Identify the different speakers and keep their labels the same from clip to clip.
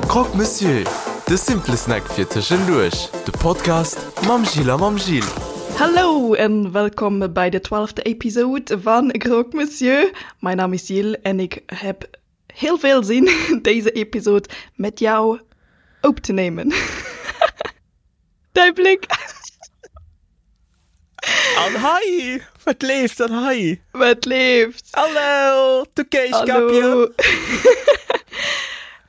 Speaker 1: Croque Monsieur, de simple Snack fir tëschenduerch, de Podcast mam Jill a mam Gilles.
Speaker 2: Hallo en welkom bij de twaalfde episode van Croque Monsieur. Mijn naam is Jill en ik heb heel veel zin deze episode met jou op te nemen. Däi Bléck!
Speaker 3: An hei! Wat leeft an hei?
Speaker 2: Wat leeft?
Speaker 3: Hallo! Du Kéischkappchen!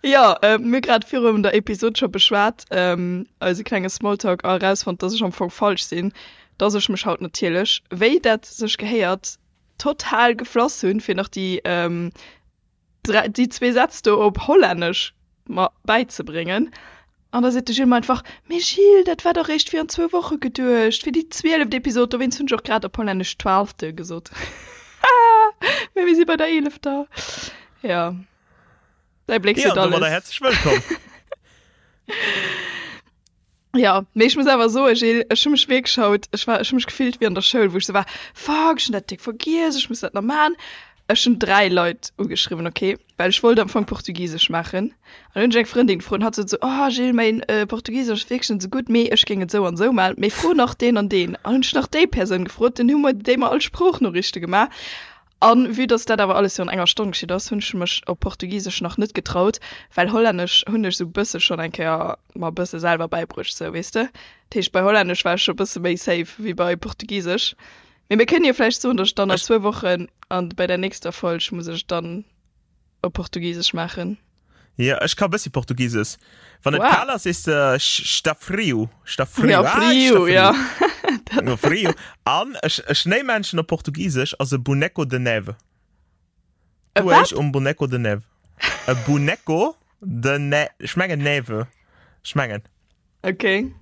Speaker 2: Jo, mir hu grad virun der Episod scho beschwat, eise klenge Smalltalk, a erausfonnt, dass ech am Fong falsch sinn, dass ech mech haut natierlech, wéi dat sech gehéiert, total geflass hunn, fir nach déi déi zwee Sätz do op Hollännesch mer bäizebréngen. An da seet de Gilles mer einfach, Mee Gilles, dat war dach réischt virun zwou Woche geduecht, fir déi zwieleft Episod, dowéinst hunn ech och grad op Hollännesch twaalfte gesot. Mee mir si bei der eelefter. Jo, däi Bléck
Speaker 3: seet
Speaker 2: alles.
Speaker 3: Jo, domadder häerzlech wëllkomm.
Speaker 2: Ja, mee ech muss awer soen, Gilles, ech hu mech wierklech haut, ech war, ech hu mech gefillt wéi an der Schoul, wou ech sou war, Fuck, ech hunn dat déck vergiess, ech muss dat nach maachen. Ech hunn 3 Leit ugeschriwwen, okay, well ech wollt am Fong Portugisesch maachen. An hunn ech eng Frëndin gefrot an hatt sot sou, Oh Gilles, mäin Portugisesch ass wierklech net sou gutt, mee ech géing et sou an sou maachen, mee fro nach deen an deen. An hunn ech nach déi Persoun gefrot, dunn hu mer déi mer all Sproochnoriichte gemaach. An vue dass dat awer alles virun enger Stonn geschitt ass, hunn ech mech op Portugisesch nach net getraut, well Hollännesch hunn ech sou bësse schonn eng Kéier mer bësse selwer bäibruecht, sou, weess de. Dat heescht, bei Hollännesch war ech scho bësse méi safe wéi bei Portugisesch. Mee mir kënnen jo vläicht soen, dass ech dann a zwou Wochen an bei der nächster Folg muss ech dann op Portugisesch maachen.
Speaker 3: Ja, ech ka bëssi Portugises. Wann et kal ass, sees de sta frio. Sta frio.
Speaker 2: Ja, frio, ja.
Speaker 3: No frio. An e Schnéimännchen op Portugisesch ass e Boneco de neve.
Speaker 2: E
Speaker 3: Du
Speaker 2: wat?
Speaker 3: eich um Boneco de neve. E Boneco de ne ech mengen Neve. Ech mengen.
Speaker 2: Okay.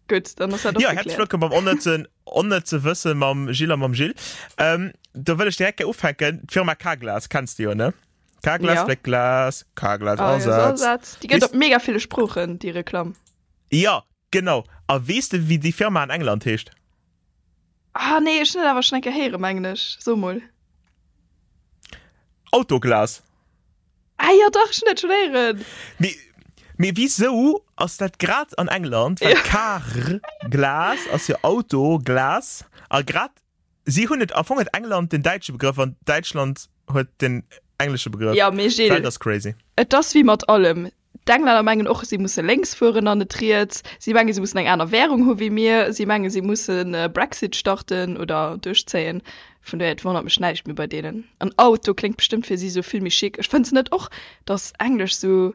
Speaker 2: Gutt, dann ass dat och
Speaker 3: Ja, herzlich
Speaker 2: gekläert.
Speaker 3: wëllkomm beim onnëtzen onnëtze Wësse mam Gilles a mam Gilles. Ähm, do wëll ech direkt gär ufänken. D'Firma Carglass kenns de jo, ne? Carglass
Speaker 2: Ja.
Speaker 3: fléckt Glas, Carglass
Speaker 2: Ah, ja,
Speaker 3: ersetzt.
Speaker 2: Ersatz. Déi gëtt
Speaker 3: Weess-
Speaker 2: op mega ville Sproochen, déi Reklamm.
Speaker 3: Ja, genau. A weess de, wéi déi Firma an England heescht?
Speaker 2: Ah nee, ech hunn et awer schonn eng Kéier héieren, mengen ech. So mol.
Speaker 3: Autoglas.
Speaker 2: Ah jo, dach, ech hunn dat schonn héieren.
Speaker 3: Mee, mee wisou ass dat grad an England? Well
Speaker 2: Ja.
Speaker 3: Car Glas ass jo Auto Glas a grad si hunn et am Fong huet England den däitsche Begrëff an Däitschland huet den englesche Begrëff.
Speaker 2: Ja, mee
Speaker 3: D'Welt
Speaker 2: Gilles,
Speaker 3: ass crazy.
Speaker 2: et ass wéi mat allem. D'Englänner mengen och, si musse lénks fueren an net riets. Si mengen, si mussen eng aner Währung hu wéi mir. Si mengen, si mussen e Brexit starten oder duerchzéien. Vun dohier, et wonnert mech näischt méi bei deenen. An Auto kléngt bestëmmt fir si sou vill méi chic. Ech fënns net och, dass Englesch sou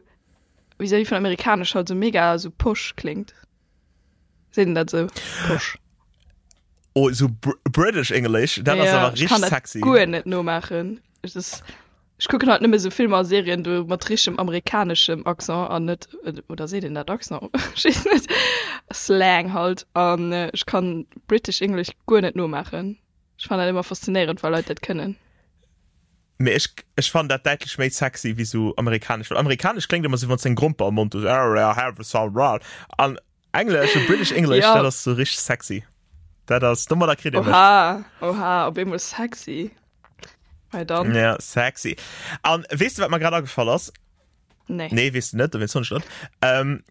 Speaker 2: vis-à-vis vun Amerikanesch halt sou mega sou posh kléngt? Seet een dat sou? Posh?
Speaker 3: Oh, sou British English, dat ass
Speaker 2: Ja,
Speaker 3: awer
Speaker 2: ech kann
Speaker 3: richteg
Speaker 2: dat
Speaker 3: sexy.
Speaker 2: guer net nomaachen. Ech ass Ech kucken halt nëmme sou Filmer a Serien do mat richtegem amerikaneschem Accent an net, oder seet een dat Accent? Ech weess net, Slang halt. An ech kann British English guer net nomaachen. Ech fannen dat ëmmer faszinéierend wa Leit dat kënnen.
Speaker 3: Mee ech ech fannen dat däitlech méi sexy wéi sou amerikanesch, well amerikanesch kléngt ëmmer sou wann s de eng Gromper am Mond hues, an Englesch, sou British English,
Speaker 2: Ja.
Speaker 3: dat ass sou richteg sexy. Dat ass, domadder kritt ee mech.
Speaker 2: Oha, oha, op eemol sexy. Hei dann.
Speaker 3: Ja, sexy. An weess de wat mer grad agefall ass?
Speaker 2: Nee.
Speaker 3: Nee, weess de net, dowéinst soen ech dat. Ähm,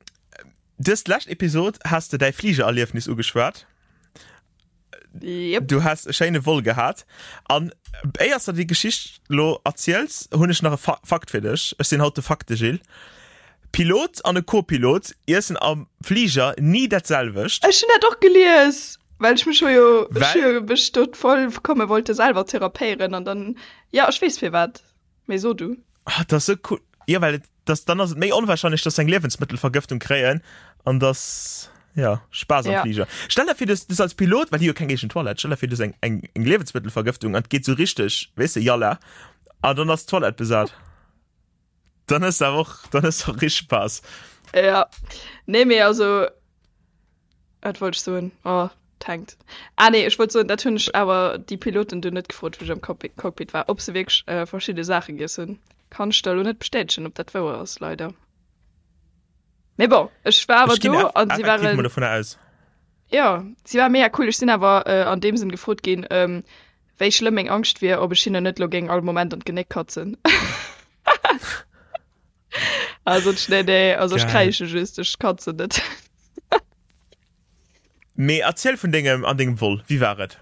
Speaker 3: dës lescht Episod has de däi Fligererliefnis ugeschwat.
Speaker 2: Yep.
Speaker 3: Du has e schéine Vol gehat. An éiers de déi Geschicht lo erziels, hunn ech nach e Fa Fakt fir dech. Ech sinn haut de Fakte-Gilles. Pilot an e Co-Pilot iessen am Fliger ni dat selwecht.
Speaker 2: Ech hunn dat och gelies, well ech mech hu jo, ech hu
Speaker 3: Well?
Speaker 2: jo mech do voll komme wollte selwer therapéieren an dann, ja ech weess firwat, mee so du.
Speaker 3: Ah, dat ass sou cool. Jo, well et, dass, dann ass et méi onwahrscheinlech, dass se eng Liewensmëttelvergëftung kréien an dass, ja, Spaass am
Speaker 2: Ja.
Speaker 3: Fliger. Stell der vir, du hues als Pilot, well déi hu jo keng eegen Toilette, stell der vir, du hues eng, eng, eng Liewensmëttelvergëftung an et geet sou richteg, weess de, jalla, an dann ass d'Toilette besat. Dann hues de awer och, dann hues de och richteg Spaass.
Speaker 2: Ja, nee, mee also, wat wollt ech soen? Oh, et hänkt. Ah nee, ech wollt soen, dat hunn ech awer déi Piloten do net gefrot, wou ech am Cockpit war, ob se wierklech äh, verschidde Saache giess hunn. Kann ech der elo net bestätegen, ob dat wouer ass, leider. Mee bon, ech war awer
Speaker 3: Ech ginn
Speaker 2: do
Speaker 3: eff
Speaker 2: an si
Speaker 3: effektiv mol
Speaker 2: waren,
Speaker 3: dovunner aus.
Speaker 2: ja, si war mega cool. Ech sinn awer äh, an deem Sënn gefrot ginn, ähm, wéi schlëmm meng Angscht wier, ob ech hinnen net lo géing all Moment an d'Genéck katzen. Also nee, nee, also ech kräische just, ech kann se net.
Speaker 3: Mee erziel vun dengem an dengem Vol, wéi war et?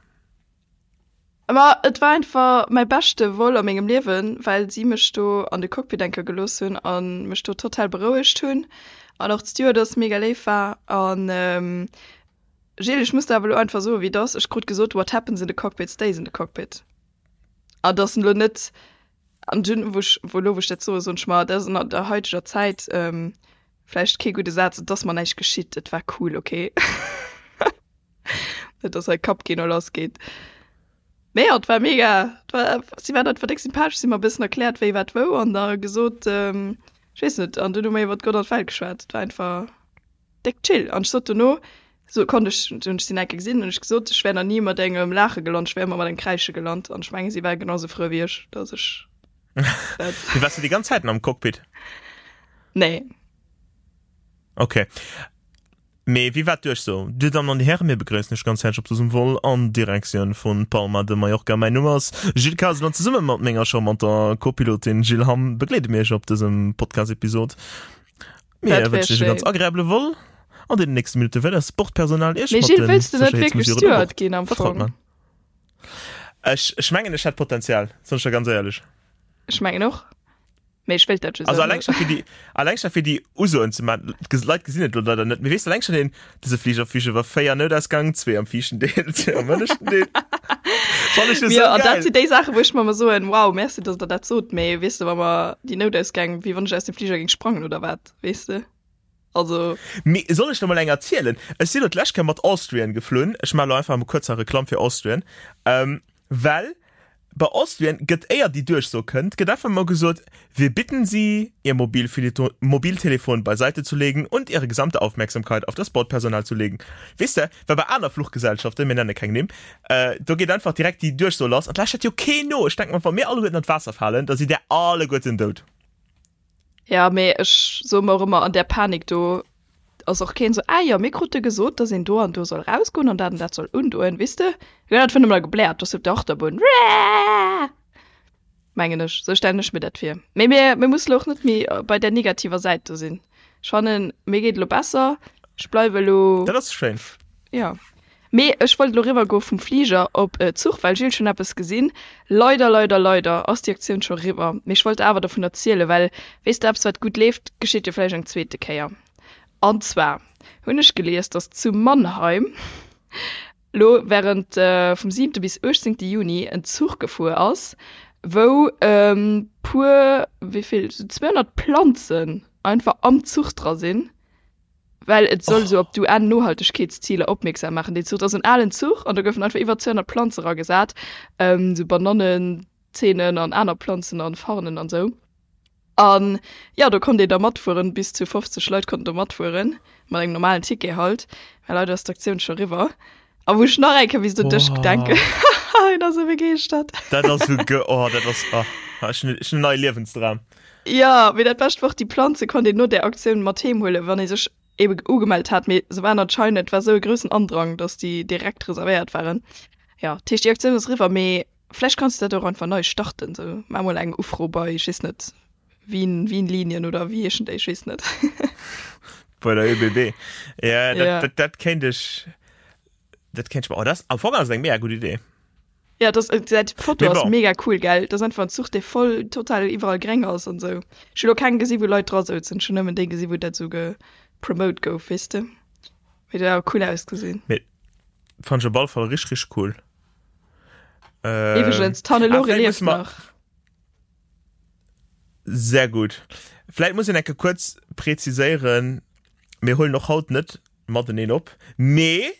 Speaker 2: Ma et war einfach mäi beschte Vol a mengem Liewen, well si mech do an de Cockpit enker gelooss hunn a mech do total berouegt hunn an och d'Stewardess mega léif war. An Gilles, ech muss der awer elo einfach soen, wéi et ass, ech krut gesot, what happens in the cockpit stays in the cockpit. An dass elo net An dunn, wou ech, wou elo wou ech dat soen, soen ech mer, dat ass an der haiteger Zäit vläicht kee gudde Saz, et ass mer näischt geschitt, et war cool, okay. Net dass hei Kappkino lass geet. Mee jo, et war mega, et war, si waren einfach déck sympathesch, si hu mer e bëssen erkläert, wéi wat wou an da gesot, ech weess net, an dunn hu mer iwwert Gott an d'Welt geschwat. Et war einfach. Déck chill. An ech sot dono, so konnt ech, hunn ech si nach eng Kéier gesinn, hunn ech gesot, ech wär nach ni mat engem Laache gelant, ech wär ëmmer mat engem Kräische gelant. An ech mengen, si war genau sou frou wéi ech, dass ech
Speaker 3: dat. Mee waars du déi ganz Zäiten am Cockpit?
Speaker 2: Nee.
Speaker 3: Okay. Mee wéi war d'Duerchso? Dir Dammen an Dir Hären, mir begréissen Iech ganz häerzlech op dësem Vol an Direktioun vun Palma de Mallorca. Mäin Numm ass Gilles Kasel an zesumme mat menger charmanter Co-Pilotin Jill Hamm begleede mir Iech op dësem Podcast-Episod. Mir
Speaker 2: Dat wär
Speaker 3: wënschen Iech e ganz
Speaker 2: schéin.
Speaker 3: agreabele Vol. An deenen nächste Minutte wäert eist Bordpersonal Iech
Speaker 2: Mee
Speaker 3: mat
Speaker 2: Gilles,
Speaker 3: de
Speaker 2: wëlls du net wierklech
Speaker 3: Sécherheetsmesuren u
Speaker 2: Steward
Speaker 3: Bord
Speaker 2: ginn am
Speaker 3: vertraut
Speaker 2: Fong?
Speaker 3: man. Ech, ech mengen, ech hätt Potenzial, soen ech der ganz éierlech.
Speaker 2: Ech mengen och. Mee ech wéilt dat just
Speaker 3: Also
Speaker 2: awer
Speaker 3: alleng
Speaker 2: net.
Speaker 3: scho fir déi, alleng scho fir déi Usoen ze man. D'Ges- Leit gesinn et lo leider net, mee weess de, alleng schon deen, dëse Fliger fliegt iwwer 4 Noutausgang, zwee am viischten Deel, zwee am ënneschten Deel. Fann ech jo
Speaker 2: Jo,
Speaker 3: sou
Speaker 2: an dat
Speaker 3: geil.
Speaker 2: sinn déi Saachen, wou ech mer ëmmer soen, wow, merci, datt der dat sot, mee weess de, wa mer déi Noutausgäng, wéi wann ech aus dem Fliger géing sprangen oder wat, weess de? Also.
Speaker 3: Mee soll ech der mol eng erzielen? Ech sinn lo d'lescht Kéier mat Austrian geflunn. Ech maache lo einfach emol kuerz hei Reklamm fir Austrian. Well bei Austrian gëtt, éier déi Duerchso kënnt, gëtt einfach emol gesot, Wir bitten Sie, Ihr Mobiltelefon beiseite zu legen und Ihre gesamte Aufmerksamkeit auf das Bordpersonal zu legen. Weess de, well bei aner Fluchgesellschaften, mir nenne keng Nimm, do geet einfach direkt déi Duerchso lass an d'lauschtert jo keen no. Ech denke mer, wa mir alleguerten an d'Waasser falen, da sidd där alleguerten dout.
Speaker 2: Ja, mee ech soe mer och ëmmer, an där Panik do ass och keen esou, ah jo, mir krute gesot, dass een do an do soll rausgoen an dat an dat soll undoen, weess de? Jo, dat vun ëmmer gebläert, do ass op der Achterbunn, Wääää! Mengen ech, esou stellen ech mir dat vir. Mee mir, mir musse lo och net méi bei där negativer Säit do sinn. Ech fannen, mir geet elo besser, ech bleiwe elo.
Speaker 3: Dat ass schéin.
Speaker 2: Jo. Mee ech wollt elo riwwer goe vum Fliger op Zuch, well Gilles, ech hunn eppes gesinn. Leider, leider, leider ass déi Aktioun scho riwwer. Mee ech wollt awer dovun erzielen, well, weess de, eppes wat gutt leeft, geschitt jo vläicht eng zweete Kéier. An zwar hunn ech gelies, datt zu Mannheim elo während vum siwente bis uechtzéngte Juni en Zuch gefuer ass, wou puer, wéi vill, sou 200 Planzen einfach am Zuch dra sinn. Well et soll esou op d'UN-Nohaltegkeetsziler opmierksam maachen. Deen Zuch, dat ass en alen Zuch an do goufen einfach iwwer 200 Planze ragesat, esou Banannenzeenen an aner Planzen an Farnen an esou. An jo, do konnt een da matfueren, bis zu 50 Leit konnten do matfueren, mat engem normalen Ticket halt. Mä leider ass d'Aktioun scho riwwer. A wou ech nach eng Kéier misst un dech denken. Hien ass esou begeeschtert.
Speaker 3: Dat ass esou ge, oh dat ass, oh, ech hunn en neie Liewensdram.
Speaker 2: Jo, mee dat Bescht war och, déi Planze konnt een no där Aktioun mat heem huelen, wann ee sech ebe ugemellt hat. Mee se waren anscheinend, et war esou e groussen Andrang, datt déi direkt reservéiert waren. Jo, dat heescht, déi Aktioun ass eriwwer, mee vläicht kanns de dat och einfach nei starten, sou maach mol eng Ufro bei, ech weess net, Wien, Wien-Linien oder wéi heeschen déi, ech weess net.
Speaker 3: Bei der ÖBB. Ja, dat,
Speaker 2: Ja.
Speaker 3: dat, dat kéint ech, dat kéint ech mer, oh, dat ass, am Fong ass et eng mega gutt Idee.
Speaker 2: Ja, das, äh, dat Foto
Speaker 3: Mee
Speaker 2: ass
Speaker 3: bon.
Speaker 2: mega cool, gell? Dat ass einfach en Zuch, dee voll total iwwerall gréng ass an sou. Ech hu lo keng gesi wou Leit dra souzen, ech hunn nëmmen déi gesi wou dat sou gepromote gouf, weess de? Mee dat huet awer cool ausgesinn.
Speaker 3: Mee fand ech op alle Fall richteg, richteg cool. Ähm,
Speaker 2: Iwwregens, d'Hannelore
Speaker 3: ah, vläicht
Speaker 2: lieft
Speaker 3: musse mer-
Speaker 2: nach.
Speaker 3: Sehr gut. Vläicht muss een enke kuerz präziséieren, mir huelen och haut net mateneen op, mee,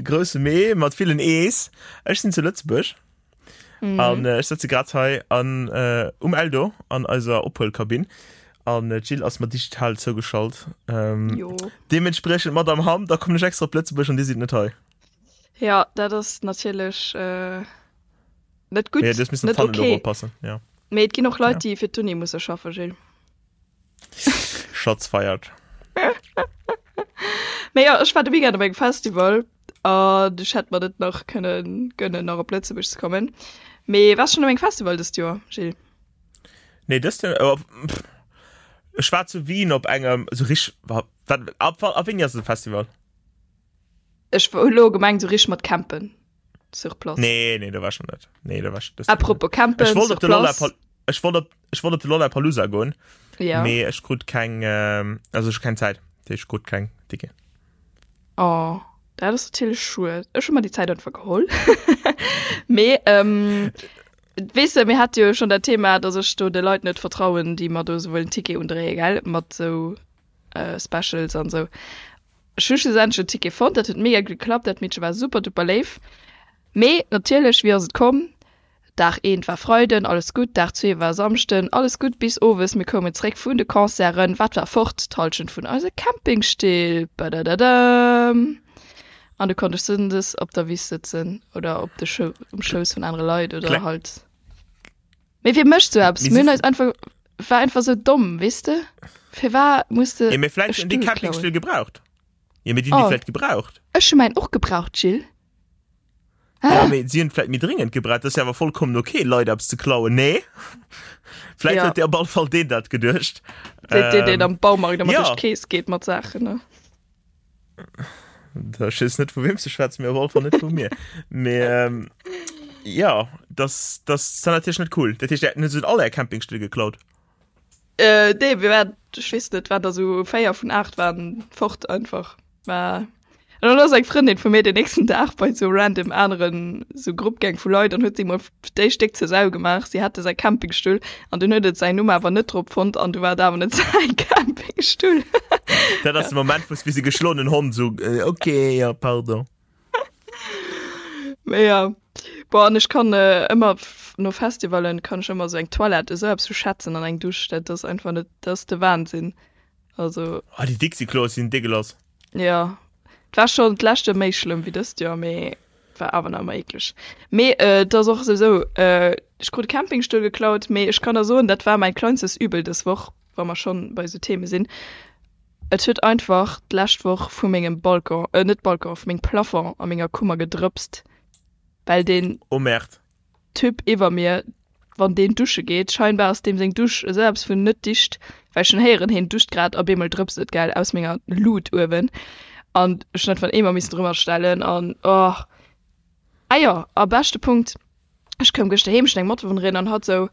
Speaker 3: grousse Mee mat villen E's, ech sinn zu Lëtzebuerg mm. an äh, ech sëtze grad hei an, äh, um Eldo an eiser Ophuelkabinn an äh, d'Jill ass mer digital zougeschalt. Ähm,
Speaker 2: Jo.
Speaker 3: deementspriechend Madame Hamm, da kommen ech extra op Lëtzebuerg an Dir sidd net hei.
Speaker 2: Ja, dat ass natierlech äh, net gutt,
Speaker 3: Ja, das müssen
Speaker 2: net
Speaker 3: okay.
Speaker 2: oppassen.
Speaker 3: Ja.
Speaker 2: Mee et ginn och Leit, ja. déi fir d'Uni musse schaffen, Gilles.
Speaker 3: Shots fired.
Speaker 2: Mee ja, ech war de Weekend op engem Festival an ech hätt mer net nach kënnen gönnen, nach op Lëtzebuerg ze kommen. Mee waars schonn op engem Festival dëst Joer, Gilles?
Speaker 3: Nee, dëst Joer, oh, pff. Ech war zu Wien op engem sou rich wat ab ab wéini ass de Festival?
Speaker 2: Ech hu lo gemengt sou rich mat campen sur place.
Speaker 3: Nee nee do war ech nach net. Nee do war ech
Speaker 2: Apropos campen
Speaker 3: Ech wollt
Speaker 2: sur
Speaker 3: op de Lolla
Speaker 2: place.
Speaker 3: Ech wollt op ech wollt op de Lollapalooza goen.
Speaker 2: Ja.
Speaker 3: Mee ech krut keng äh, also ech keng Zäit. Ech krut keng Ticket.
Speaker 2: Oh, dat ass natierlech schued. Ech hu mer déi Zäit einfach geholl. Mee ähm, weess de, mir hate jo schonn dat Thema, datt ech do de Leit net vertrauen, déi mer do esou wëllen Ticket undréien, gell, mat esou äh, Specials an esou. Ech hu schlussendlech en Ticket fonnt, dat huet mega gutt geklappt, dat Meedche war super duper léif. Mee natierlech, wéi ass et komm? Dag eent war Freiden, alles gutt, Dag zwee war Samschden, alles gutt, bis owes, mir koumen zréck vun de Concerten, wat war fort? D'Hallschent vun eise Campingstill! Badadadam! An du konnt ech sënndes op der Wiss sëtzen oder op de Schou um Schouss vun anere Leit oder
Speaker 3: Kleng.
Speaker 2: halt. Mee wie mécht sou eppes?
Speaker 3: Mee
Speaker 2: Mir
Speaker 3: si
Speaker 2: hunn eis einfach, war einfach sou domm, weess de? Firwat muss de
Speaker 3: Ja, mee
Speaker 2: e
Speaker 3: vläicht hunn déi
Speaker 2: Stull klauen?
Speaker 3: Campingstill gebraucht. Ja, mee déi hunn déi
Speaker 2: Oh.
Speaker 3: vläicht gebraucht.
Speaker 2: Ech hu mäin och gebraucht, Gilles.
Speaker 3: Ja, mee si hunn vläicht méi dringend gebraucht. Dat ass jo awer vollkommen okay, Leit eppes ze klauen, nee? Vläicht
Speaker 2: Ja.
Speaker 3: huet dee op alle Fall deen dat geduecht.
Speaker 2: Seet deen, deen
Speaker 3: Ähm,
Speaker 2: am Baumarkt ëmmer
Speaker 3: ja.
Speaker 2: duerch d'Kees geet mat Saachen, ne?
Speaker 3: Da ech weess net vu weem s de schwätz, mee op alle Fall net vu mir. Mee ähm, ja, das, das ass dann natierlech net cool. Dat heescht, Dir hutt all är Campingstill geklaut?
Speaker 2: Äh, nee, mir waren, ech weess net, waren der sou 4 vun 8 waren fort einfach. War an dann ass eng Frëndin vu mir den nächsten Dag bei sou random aneren sou Grupp gaang vu Leit an huet si mol déi Stéck zur Sau gemaach. Si hätte säi Campingstull an dunn huet et säin Numm awer net drop fonnt an du war et awer net säi Campingstull.
Speaker 3: Dat ass de Moment, wou s wéi se geschloenen Hond sou, äh, okay, ja, pardon.
Speaker 2: Mee ja. Boah, an ech kann äh, ëmmer no Festivalen kann ech ëmmer sou eng Toilette esou eppes vu schätzen an eng Dusch, dat ass einfach net, dat ass de Wahnsinn. Also.
Speaker 3: Ah, déi Dixi-Kloe sinn degueulass.
Speaker 2: Ja, et war schonn d'lescht Joer méi schlëmm wéi dëst Joer, mee et war awer nach ëmmer eekleg. Mee äh, et ass och souwisou, äh, ech krut e Campingstull geklaut, mee ech kann der soen, dat war mäin kleinstes Übel dës Woch, wa mer schonn bei esou Theme sinn. Et huet einfach d'lescht Woch vu mengem Balcon, äh net Balcon, vu mengem Plafond a menger Kummer gedrëpst, well deen.
Speaker 3: Oh Merde.
Speaker 2: Typ iwwer mir, wann deen dusche geet, scheinbar ass deem seng Dusch esou eppes vun net dicht, well ech hunn héieren, heen duscht grad a bemol drëpst et, gell, aus menger Lut uewen an ech hunn einfach en Eemer missen drëmmer stellen an oh. Ah jo, a beschte Punkt, Ech koum gëschter heem, ech hunn eng Matbewunnerin an hatt sou,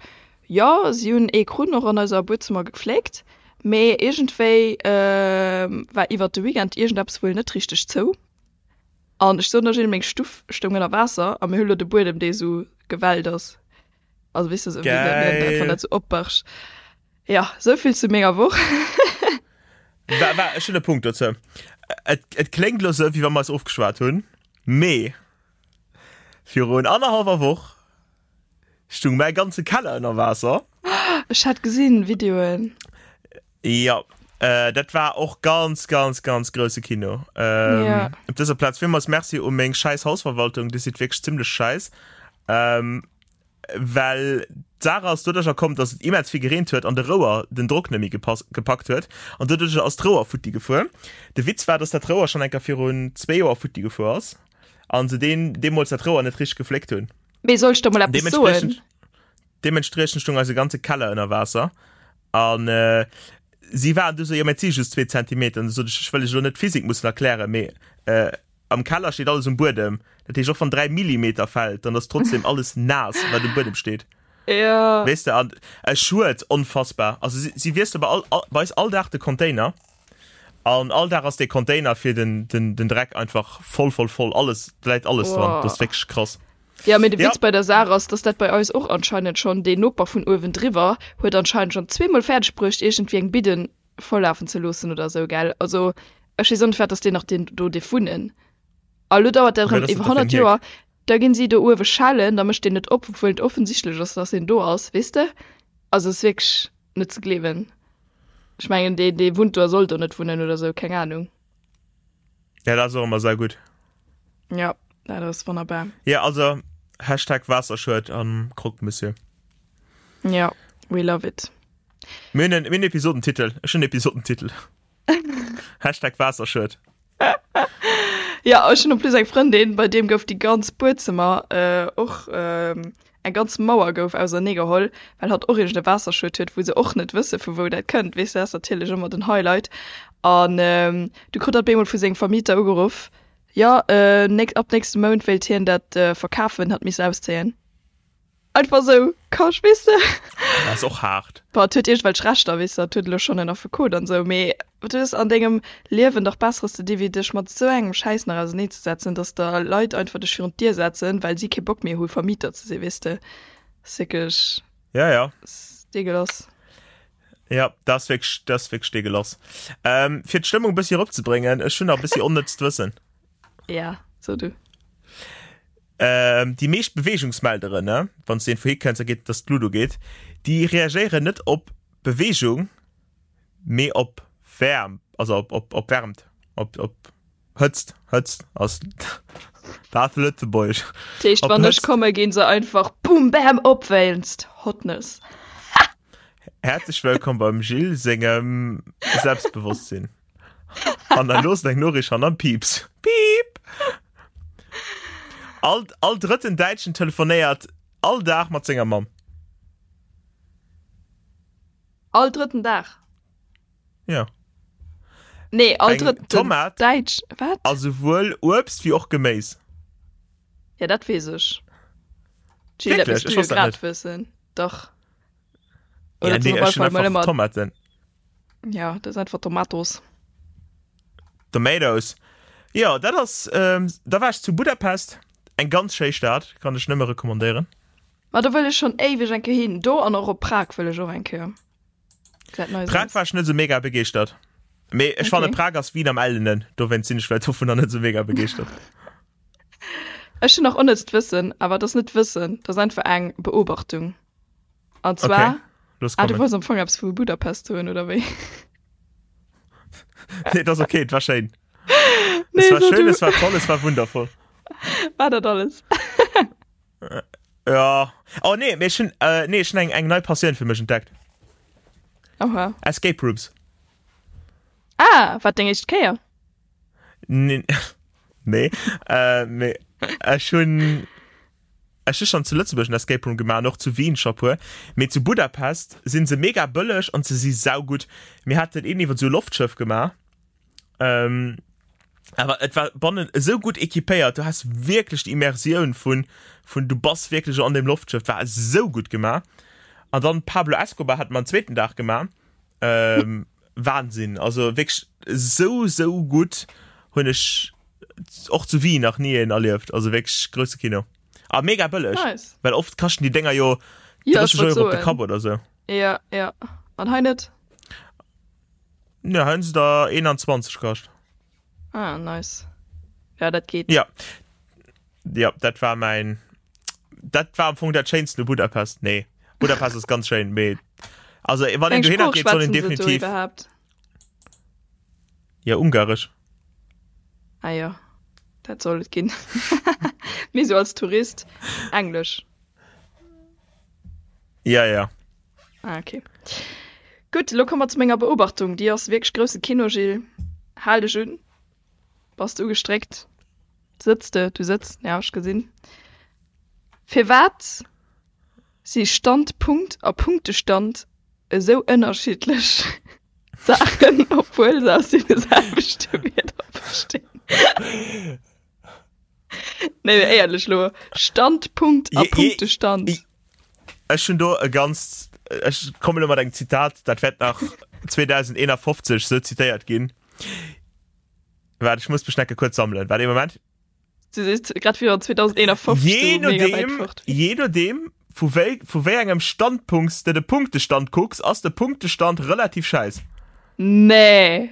Speaker 2: jo si hunn ee Krunn och an eiser Buedzëmmer gefléckt, mee iergendwéi war iwwert de Weekend iergendeppes wuel net richteg zou. An ech soen der Jill, meng Stuff stoung ënner Waasser a mir hu lo de Buedem dee sou gewellt ass. Also weess de sou wéi
Speaker 3: Geil!
Speaker 2: wann dat sou opbargt. Jo, sou vill zu menger Woch.
Speaker 3: Wa, wa, ech hunn e Punkt dozou. Et, et kléngt lo sou, wéi wa mer eis ofgeschwat hunn, mee Virun annerhallwer Woch stung mäi ganze Keller ënner Waasser.
Speaker 2: Ech hat gesinn Videoen.
Speaker 3: Jo, äh, dat war och ganz, ganz, ganz grousse Kino. Ähm,
Speaker 2: Ja.
Speaker 3: Op dëser Plaz villmools Merci u meng schäiss Hausverwaltung, déi sidd wierklech zimmlech schäiss. Ähm, well d'Saach ass doduercher komm, dass et immens vill gereent huet an de Rouer den Drock net méi gepackt huet an doduercher ass d'Rouer futti gefuer. De Witz war, dass dat Rouer schonn eng Kéier virun zwee Joer futti gefuer ass an se deen deemools dat Rouer net richteg gefléckt hunn.
Speaker 2: Mee soll ech der mol eppes soen?
Speaker 3: Deementspriechend stung eise ganze Keller ënner Waasser an si waren du sou, jo mä et si just zwee Zentimeter. An du sot ech, ech wëll lech elo net d'Physik mussen erklären, mee Am Keller steet alles um Buedem. Dat heescht, och wann 3 Millimeter fällt, dann ass trotzdem alles naass, wat um Buedem steet.
Speaker 2: Ja.
Speaker 3: Weess de, an e Schued, onfassbar. Also si, si wiessele bei all, all, bei eis all Dag de Container. An all Dag ass dee Container fir den, den, den Dreck einfach voll, voll, voll. Alles, da läit alles dran.
Speaker 2: Boah.
Speaker 3: Dat ass wierklech krass.
Speaker 2: Ja, mee de
Speaker 3: Ja.
Speaker 2: Witz bei der Saach ass, dass dat bei eis och anscheinend schonn, deen Noper vun uewendriwwer huet anscheinend schonn zweemol fäerdeg bruecht, iergendwéi eng Bidden volllafen ze loossen oder esou, gell? Also ech weess och net, wat ass deen nach deen do dierf wunnen. A lo dauert dat
Speaker 3: Wat
Speaker 2: erëm
Speaker 3: ass dat
Speaker 2: iwwer
Speaker 3: da fir en
Speaker 2: 100
Speaker 3: Hierk?
Speaker 2: Joer, da ginn si do uewe schellen, da mécht deen net op, obwuel et offensichtlech ass, dass en do ass, weess de? Also et ass wierklech net ze gleewen. Ech mengen, dee dee wunnt do a soll do net wunnen oder esou, keng Anung.
Speaker 3: Ja, dat ass och ëmmer saugutt.
Speaker 2: Ja, dat ass wonnerbar.
Speaker 3: Ja, also Hashtag Waasserschued am Croque Monsieur.
Speaker 2: Ja, we love it.
Speaker 3: Mir hunn en, mir hunn Episodentitel. Ech hunn Episodentitel. Hashtag Waasserschued.
Speaker 2: Ja, ech hunn en plus eng Frëndin, bei deem gouf déi ganz Buedzëmmer äh, och äh, eng. Eng ganz Mauer gouf auserneegeholl, well hatt och iergend e Waasserschued huet, wou se och net wësse vu wou dat kënnt. Weess de, dat ass natierlech ëmmer den Highlight. An du krut hatt bemol vu sengem Vermieter ugeruff, jo, ab nächste Mount wéilt hien dat verkafen, hatt misst auszéien. Einfach sou, Kasch, weess de.
Speaker 3: Dat ass och haart.
Speaker 2: Bon, et huet iergendwelch Rechter, weess de, et huet elo schonn en Affekot an esou, mee du hues an dengem Liewen dach Besseres ze di wéi dech mat esou engem Schäiss nach auserneezesetzen, dass der Leit einfach dech virun d'Dier setzen, well si kee Bock méi hu Vermieter ze sinn, weess de. Ass wierklech,
Speaker 3: Ja, ja.
Speaker 2: ass deegelass.
Speaker 3: Ja, dat ass wierklech, dat ass wierklech deegelass. Ähm, fir d'Stëmmung e bëssi eropzebréngen, ech hunn nach e bëssi onnëtzt Wëssen.
Speaker 2: Ja, so du.
Speaker 3: Ähm, déi meescht Beweegungsmelderen, ne, wann s de een vu hikënns a geet, dass d'Luut ugeet, déi reagéieren net op Beweegung, mee op Wäerm, also op, op, op Wärmt, op, op Hëtzt, Hëtzt ass dat Lëtzebuergesch.
Speaker 2: Dat heescht, wann ech komme ginn se einfach boom bam op wéinst Hotness.
Speaker 3: Häerzlech wëllkomm beim Gilles sengem Selbstbewosstsinn. An dann los eng Norich an am Pieps. Piep! All, all drëtten Däitschen telefonéiert all Dag mat senger Mamm.
Speaker 2: All drëtten Dag?
Speaker 3: Ja.
Speaker 2: Nee, all eng drëtten
Speaker 3: Tomat
Speaker 2: Däitsch, wat?
Speaker 3: A souwuel Uebst wéi och Geméis.
Speaker 2: Ja, dat weess ech. Jill, dat
Speaker 3: Wierklech?
Speaker 2: misst du
Speaker 3: Ech
Speaker 2: jo
Speaker 3: wosst dat
Speaker 2: grad
Speaker 3: net.
Speaker 2: wëssen. Dach.
Speaker 3: Ja,
Speaker 2: Oder
Speaker 3: nee,
Speaker 2: op
Speaker 3: ech
Speaker 2: alle
Speaker 3: hunn
Speaker 2: Fall mol
Speaker 3: einfach
Speaker 2: ëmmer.
Speaker 3: Tomaten.
Speaker 2: Ja, dat ass einfach Tomatos.
Speaker 3: Tomatoes. Jo, dat ass, ähm, da war ech zu Budapest, eng ganz schéi Stad, kann ech nëmme recommandéieren.
Speaker 2: Ma do wëll ech schonn éiweg eng Kéier hin. Do an och op Prag wëll ech och eng Kéier.
Speaker 3: Gesäit nice Prag aus. war ech net esou mega begeeschtert. Mee ech fanne Okay. Prag ass Wien am Ellenen, dowéinst sinn ech vläicht dovunner net esou mega begeeschtert.
Speaker 2: Ech hunn nach onnëtzt Wëssen, awer et ass net Wëssen, et ass einfach eng Beobachtung. An zwar,
Speaker 3: Okay, los
Speaker 2: ah, du
Speaker 3: kommen.
Speaker 2: wollts am Fong eppes vu Budapest soen, oder wéi?
Speaker 3: Nee, et ass okay, et war schéin.
Speaker 2: Nee,
Speaker 3: Es war
Speaker 2: so
Speaker 3: schön,
Speaker 2: du.
Speaker 3: es war toll, es war wundervoll.
Speaker 2: War dat alles?
Speaker 3: Ja. Oh nee, mee ech hunn, äh, nee, ech hunn eng, eng nei Passioun fir mech entdeckt.
Speaker 2: Oha.
Speaker 3: Escape Rooms.
Speaker 2: Ah, war deng éischt Kéier?
Speaker 3: Nee, nee, äh, mee ech hunn, Ech hu schonn zu Lëtzebuerg en Escape Room gemaach an och zu Wien scho puer, mee zu Budapest sinn se mega bëlleg an se si saugutt. Mir haten een iwwer esou e Loftschëff gemaach, awer et war bannen esou gutt equipéiert, du has wierklech déi Immersioun vun vun du bass wierklech an deem Loftschëff, war esou gutt gemaach. An dann Pablo Escobar hate mer en zweeten Dag gemaach, Wahnsinn, also wierklech esou esou gutt hunn ech och zu Wien nach ni een erlieft, also wierklech grousse Kino a mega bëlleg,
Speaker 2: Nice.
Speaker 3: well oft kaschten déi Dénger jo
Speaker 2: Ja, ech
Speaker 3: 30
Speaker 2: wollt
Speaker 3: Euro op de
Speaker 2: soen.
Speaker 3: Kapp oder sou.
Speaker 2: Ja, ja. An hei net?
Speaker 3: Ne, hei hunn se der 21 kascht.
Speaker 2: Ah, nice. Ja, dat geet.
Speaker 3: Ja. Ja, dat war mäin, dat war am Fong dat Schéinsten u Budapest. Nee, Budapest ass ganz schéin, mee also wann een
Speaker 2: Eng
Speaker 3: dohinner
Speaker 2: Sprooch
Speaker 3: geet, soll een
Speaker 2: schwätzen se do
Speaker 3: definitiv
Speaker 2: iwwerhaapt?
Speaker 3: Ja, Ungaresch.
Speaker 2: Ah jo, dat soll et ginn. Mee sou als Tourist Englesch.
Speaker 3: Ja, ja.
Speaker 2: Ah, okay. Gutt, elo komme mer zu menger Beobachtung. Déi ass wierklech grousse Kino, Gilles. Hal dech un. Bass de ugestréckt? Sëtz de? Du sëtz, ja, ech gesinn. Firwat si Standpunkt a Punktestand esou ënnerschiddlech Saachen, obwuel se aus deene selwechte Wierder bestinn? Nee, mee éierlech elo, Standpunkt a Punktestand.
Speaker 3: Ech hunn do e ganz, ech kommen elo mat engem Zitat, dat wäert nach 2051 sou zitéiert ginn. Waart, ech muss mech necke kuerz sammelen. Waart ee Moment.
Speaker 2: Du sees grad wéi wann 2051
Speaker 3: Je
Speaker 2: sou mega wäit
Speaker 3: nodeem,
Speaker 2: fort wier.
Speaker 3: je nodeem vu wéi, vu wéi engem Standpunkt s de de Punktestand kucks, ass de Punktestand relativ schäiss.
Speaker 2: Nee.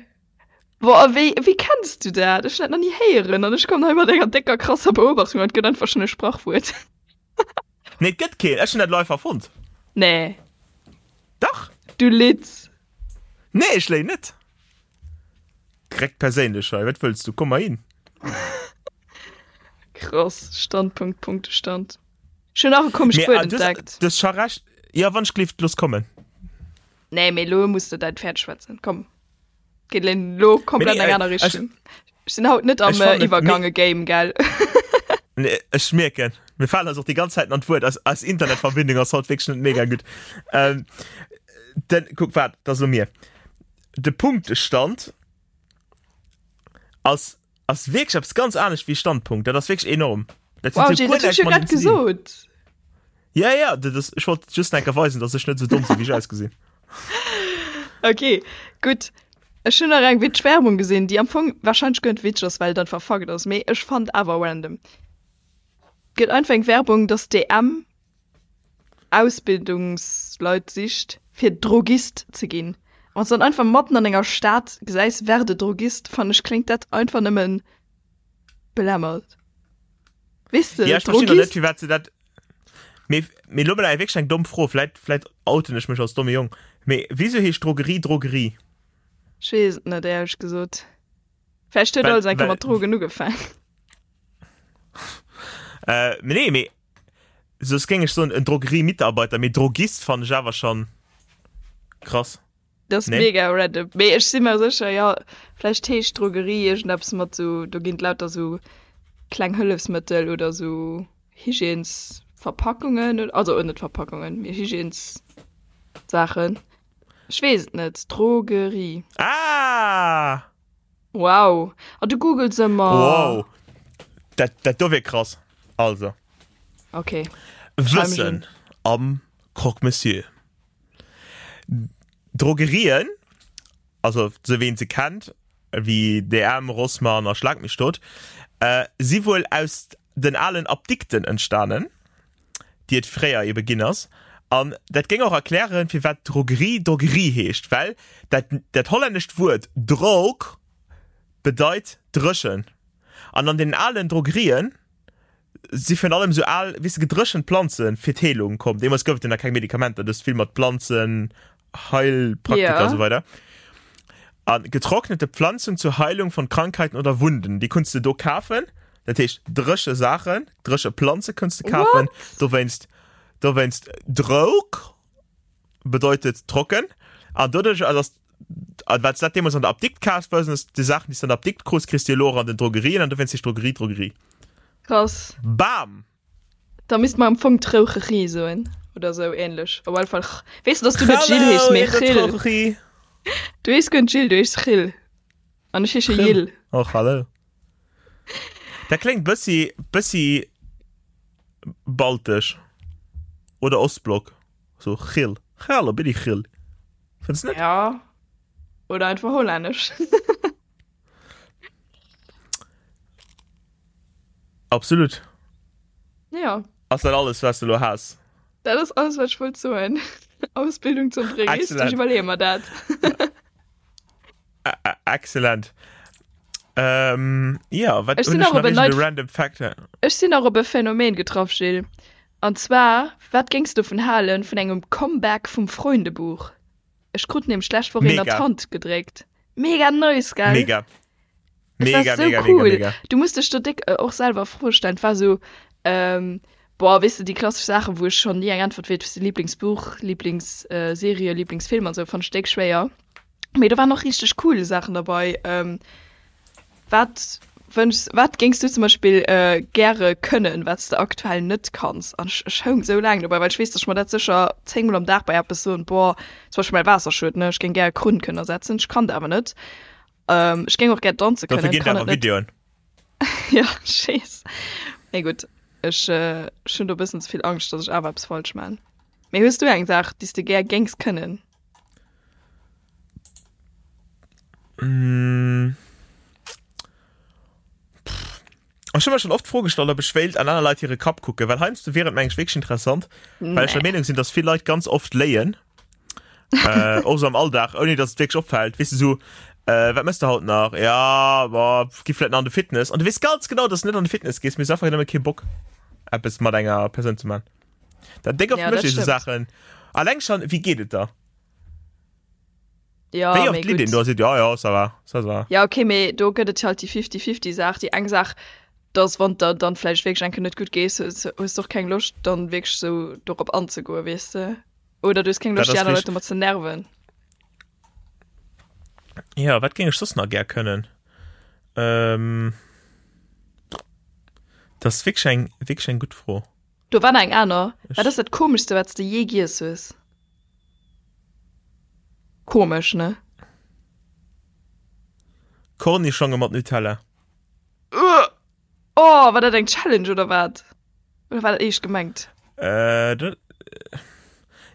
Speaker 2: Boah, wéi, wéi kenns du dat? Ech hunn dat nach ni héieren an ech kommen hei mat enger décker krasser Beobachtung an et gëtt einfach schonn e Sprachwuert.
Speaker 3: Nee, et gëtt keen. Ech hunn dat elo einfach erfonnt.
Speaker 2: Nee.
Speaker 3: Dach.
Speaker 2: Du litz.
Speaker 3: Nee, ech léien net. Direkt perséinlech hei, wat wëlls du? Komm mer hin.
Speaker 2: Krass, Standpunkt, Punktestand. Ech hunn nach e komescht
Speaker 3: Mee,
Speaker 2: Wuert
Speaker 3: ah, du hues,
Speaker 2: entdeckt.
Speaker 3: du hues scho recht. Jo, wann ech gleeft, looss kommen.
Speaker 2: Nee, mee elo muss de däin Pferd schwätzen. Komm. Geet elo komplett
Speaker 3: Nee,
Speaker 2: eng
Speaker 3: äh,
Speaker 2: aner
Speaker 3: ech-
Speaker 2: Richtung. Ech sinn haut net am
Speaker 3: ech fannen
Speaker 2: äh,
Speaker 3: et
Speaker 2: Iwwergange-Game, gell?
Speaker 3: Nee, ech mierken. Mir falen eis och déi ganz Zäiten an d'Wuert. Eis, eis Internetverbindung ass haut wierklech net mega gutt. Ähm, den, kuck, waart, dat ass elo mir. De Punktestand ass, ass wierklech eppes ganz anescht wéi Standpunkt. Dat ass wierklech enorm.
Speaker 2: Dat huet
Speaker 3: Wow,
Speaker 2: sou guer
Speaker 3: Jay, dat hunn
Speaker 2: näischt
Speaker 3: ech
Speaker 2: jo grad
Speaker 3: mateneen ze dinn.
Speaker 2: gesot.
Speaker 3: Ja, ja, dat ass, ech wollt just enker weisen, dass ech net sou domm sinn, wéi ech ausgesinn.
Speaker 2: Okay, gutt. Ech hunn nach eng witzeg Werbung gesinn, déi am Fong warscheinlech guer net witzeg ass, well et einfach Fakt ass, mee ech fand awer random. Gëtt einfach eng Werbung, dass DM Ausbildungsleit sicht fir Drogist ze ginn. Wann s de dann einfach matten an enger Stad gesäis werde Drogist, fannen ech kléngt dat einfach nëmmen belämmert. Weess de,
Speaker 3: Ja, ech verstinn och net,
Speaker 2: Drogist.
Speaker 3: firwat se dat. Mee, mee lo mol eng wierklech eng domm Fro, vläit, vläit outen ech mech als domme Jong, mee wisou heescht Drogerie Drogerie?
Speaker 2: Ech weess et net, éierlech gesot. Vläicht huet
Speaker 3: Well,
Speaker 2: alles eng Kéier
Speaker 3: well,
Speaker 2: mat Drogen ugefaang.
Speaker 3: äh, mee nee, mee soss géing ech soen en Drogerie-Mitarbeiter, mee Drogist fannen ech awer schon krass.
Speaker 2: Dat ass
Speaker 3: Nee?
Speaker 2: mega random. Mee ech si mer sécher, jo, vläicht heescht Drogerie iergendeppes mat sou, do ginn et lauter sou kleng Hëllefsmëttel oder sou Hygiènesverpackungen, also net Verpackungen, mee Hygiènessaachen. Ech weess et net. Drogerie.
Speaker 3: Ah!
Speaker 2: Wow. A du googles ëmmer.
Speaker 3: Wow. Dat, dat do wier krass. Also.
Speaker 2: Okay.
Speaker 3: Wëssen am Croque Monsieur. Drogerien, also sou wéi een se kennt, wéi DM, Rossmann a Schlag mich tot, äh, si wuel aus den alen Apdikten entstanen, déi et fréier ebe ginn ass. An dat géing och erklären, firwat Drogerie Drogerie heescht, well dat, dat hollännescht Wuert droog bedeit dréchen. An an den alen Drogerien si virun allem sou al, weess de, gedréchent Planze fir d'Heelung komm. Deemools gouf et jo nach keng Medikamenter, du hues vill mat Planzen, Heilpraktiker a
Speaker 2: Ja.
Speaker 3: sou weider. A getrocknete Pflanzen zur Heilung von Krankheiten oder Wunden, déi kunns de do kafen. Dat heescht dréche Saachen, dréche Planze kënns de kafen.
Speaker 2: What?
Speaker 3: Dowéinst, dowéinst droog bedeutet trocken. An doduerch ass an wat dat deemools an der Apdikt kaf hues, ass déi Saachen, déi s de an der Apdikt krus, kriss de elo och an den Drogerien an dowéinst heescht Drogerie Drogerie.
Speaker 2: Krass.
Speaker 3: Bam!
Speaker 2: Da misst mer am Fong Troucherie soen oder sou ähnlech. Op alle Fall ch. Weess de, dass du net Jill
Speaker 3: Hallo
Speaker 2: heeschs, mee
Speaker 3: in der
Speaker 2: Chill.
Speaker 3: Troucherie.
Speaker 2: Du heeschs guer net Jill, du heeschs Chill. An ech heesche
Speaker 3: Chill.
Speaker 2: Jill.
Speaker 3: Och hallo. Dat kléngt bëssi, bëssi baltesch oder Ostblock. So Chill. Hallo, bin ich Chill. Fënns net?
Speaker 2: Ja. Oder einfach hollännesch.
Speaker 3: Absolut.
Speaker 2: Ja.
Speaker 3: Ass dat alles, was du lo has?
Speaker 2: Dat ass alles, wat ech wollt soen. Ausbildung zum Drogist, ech iwwerleeë mer dat.
Speaker 3: Excellent. Ähm, ja, wat
Speaker 2: Ech sinn nach op en neit
Speaker 3: random Fact?
Speaker 2: Ech sinn nach op e Phänomen getraff, Gilles. An zwar, wat géings du dovun halen, vun engem Comeback vum Freundebuch? Ech krut nämlech d'lescht Woch een an d'Hand gedréckt. Mega nice, gell?
Speaker 3: Mega.
Speaker 2: Mega, war so mega, cool. Mega, mega. Du musst dech do déck äh, och selwer Froe stellen. Et war so, ähm, boah, weess de, déi klassesch Saachen, wou ech schonn ni eng Äntwert weess, wéi Lieblingsbuch, Lieblingsserie, äh, Lieblingsfilm an sou, fand ech déck schwéier. Mee do waren och richteg cool Saachen derbei. Ähm, wat wënschs, wat géings du zum Beispill äh, gäre kënnen, wat s de aktuell net kanns? An ech, ech houng sou laang dobäi, well ech weess, dass ech mer dat sécher zéngmol am Dag bei eppes soen, boah, zum Beispill mäi Waasserschued, ne, ech géing gär e Krunn kënnen ersetzen, ech kann dat awer net. Ähm, ech géing och gär danze
Speaker 3: Dofir
Speaker 2: kënnen,
Speaker 3: ginn
Speaker 2: kann
Speaker 3: awer
Speaker 2: et net.
Speaker 3: Videoen.
Speaker 2: Ja, ech weess. Mee gutt, ech, äh, ech hunn do e bëssen ze vill Angscht, dass ech awer eppes falsch man. Mee hues du eng Saach, déi s de gär géings kënnen?
Speaker 3: Mm. Pff. Ech hu mer schon oft d'Fro gestallt, ob ech wéilt an aner Leit hire Kapp kucken, well heiansdo wier et mengen ech wierklech interessant, well ech der
Speaker 2: Nee.
Speaker 3: Meenung sinn, dass vill Leit ganz oft léien. äh, och so am Alldag, ouni dass et wierklech opfält. Weess de, so, äh, wat mëss de haut nach? Ja, boah, gi vläit nach an de Fitness. An du weess ganz genau, dass du net an de Fitness gees, mee hues einfach nëmme kee Bock, eppes mat enger Persoun ze man. Dat déck oft
Speaker 2: Ja,
Speaker 3: mécht
Speaker 2: dat
Speaker 3: ee sou
Speaker 2: stimmt.
Speaker 3: Saachen. Alleng schon, wéi geet et der?
Speaker 2: Ja,
Speaker 3: Wéi
Speaker 2: mee
Speaker 3: oft litt een
Speaker 2: gutt.
Speaker 3: do a seet, ja, ja, ça va, ça va.
Speaker 2: Ja, okay, mee do gëtt et halt déi Fifty-Fifty-Saach. Déi eng Saach, dass wann der dann vläicht wierklech eng Kéier net gutt gees, hues hues de och keng Loscht, dann wierklech sou dorop anzegoen, weess de. Oder du hues keng
Speaker 3: Dat
Speaker 2: Loscht, déi
Speaker 3: ass
Speaker 2: aner Leit
Speaker 3: richteg.
Speaker 2: domat ze nerven.
Speaker 3: Ja, wat géing ech soss nach gär kënnen? Ähm. Dat ass wierklech eng, wierklech eng gutt Fro.
Speaker 2: Do war nach eng aner. Wat ass dat komeschste wat s de jee giess hues? Komesch, ne?
Speaker 3: Cornichonge mat Nutella.
Speaker 2: Ugh! Oh, war dat eng Challenge oder wat? Oder war dat eescht gemengt?
Speaker 3: Äh, dat,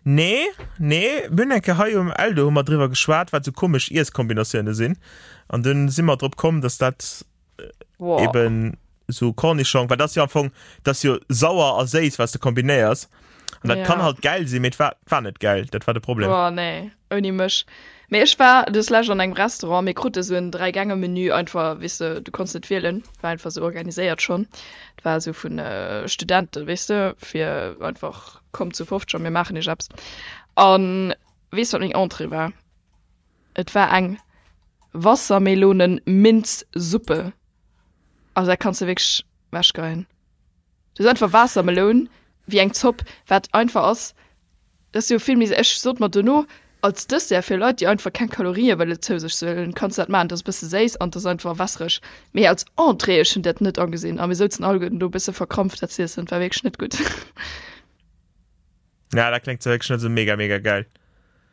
Speaker 3: nee, nee, mir hunn eng Kéier hei um Eldo hu mer driwwer geschwat, wat sou komesch Iesskombinatioune sinn. An dunn si mer drop komm, dass dat
Speaker 2: Boah.
Speaker 3: eben so Cornichong, well dat ass jo am Fong, dat ass jo sauer a séiss, wat s de kombinéiers. An dat
Speaker 2: Ja.
Speaker 3: kann halt gäil sinn, mee et war, war net gäil, dat war de Problem.
Speaker 2: Boah, nee, ouni mech. Mee ech war des lescht an engem Restaurant, mir krute sou en Dräigänge-Menü einfach, weess de, du konns net wielen, war einfach sou organiséiert schonn. Et war sou vun Studenten, weess de, fir einfach, kommt zu 50 a mir maachen iech eppes. An weess de, wat meng Entrée war? Et war eng Wassermelonen-Minz-Suppe. Also dat kanns de wierklech wechgeien. Du hues einfach Waassermeloun wéi eng Zopp, wat einfach ass. Dat ass jo vill méi, ech sot mer dono, als Dessert fir Leit, déi einfach keng Kalorië wëlle zou sech huelen, kanns de dat maachen. Dat ass e bësse séiss an et ass einfach wässereg. Mee als Entrée, ech hunn dat net agesinn a mir souzen alleguerten do e bësse verkrampft dat z'iessen. Et war wierklech net gutt.
Speaker 3: Ja, dat kléngt zwar wierklech net esou mega mega gäil.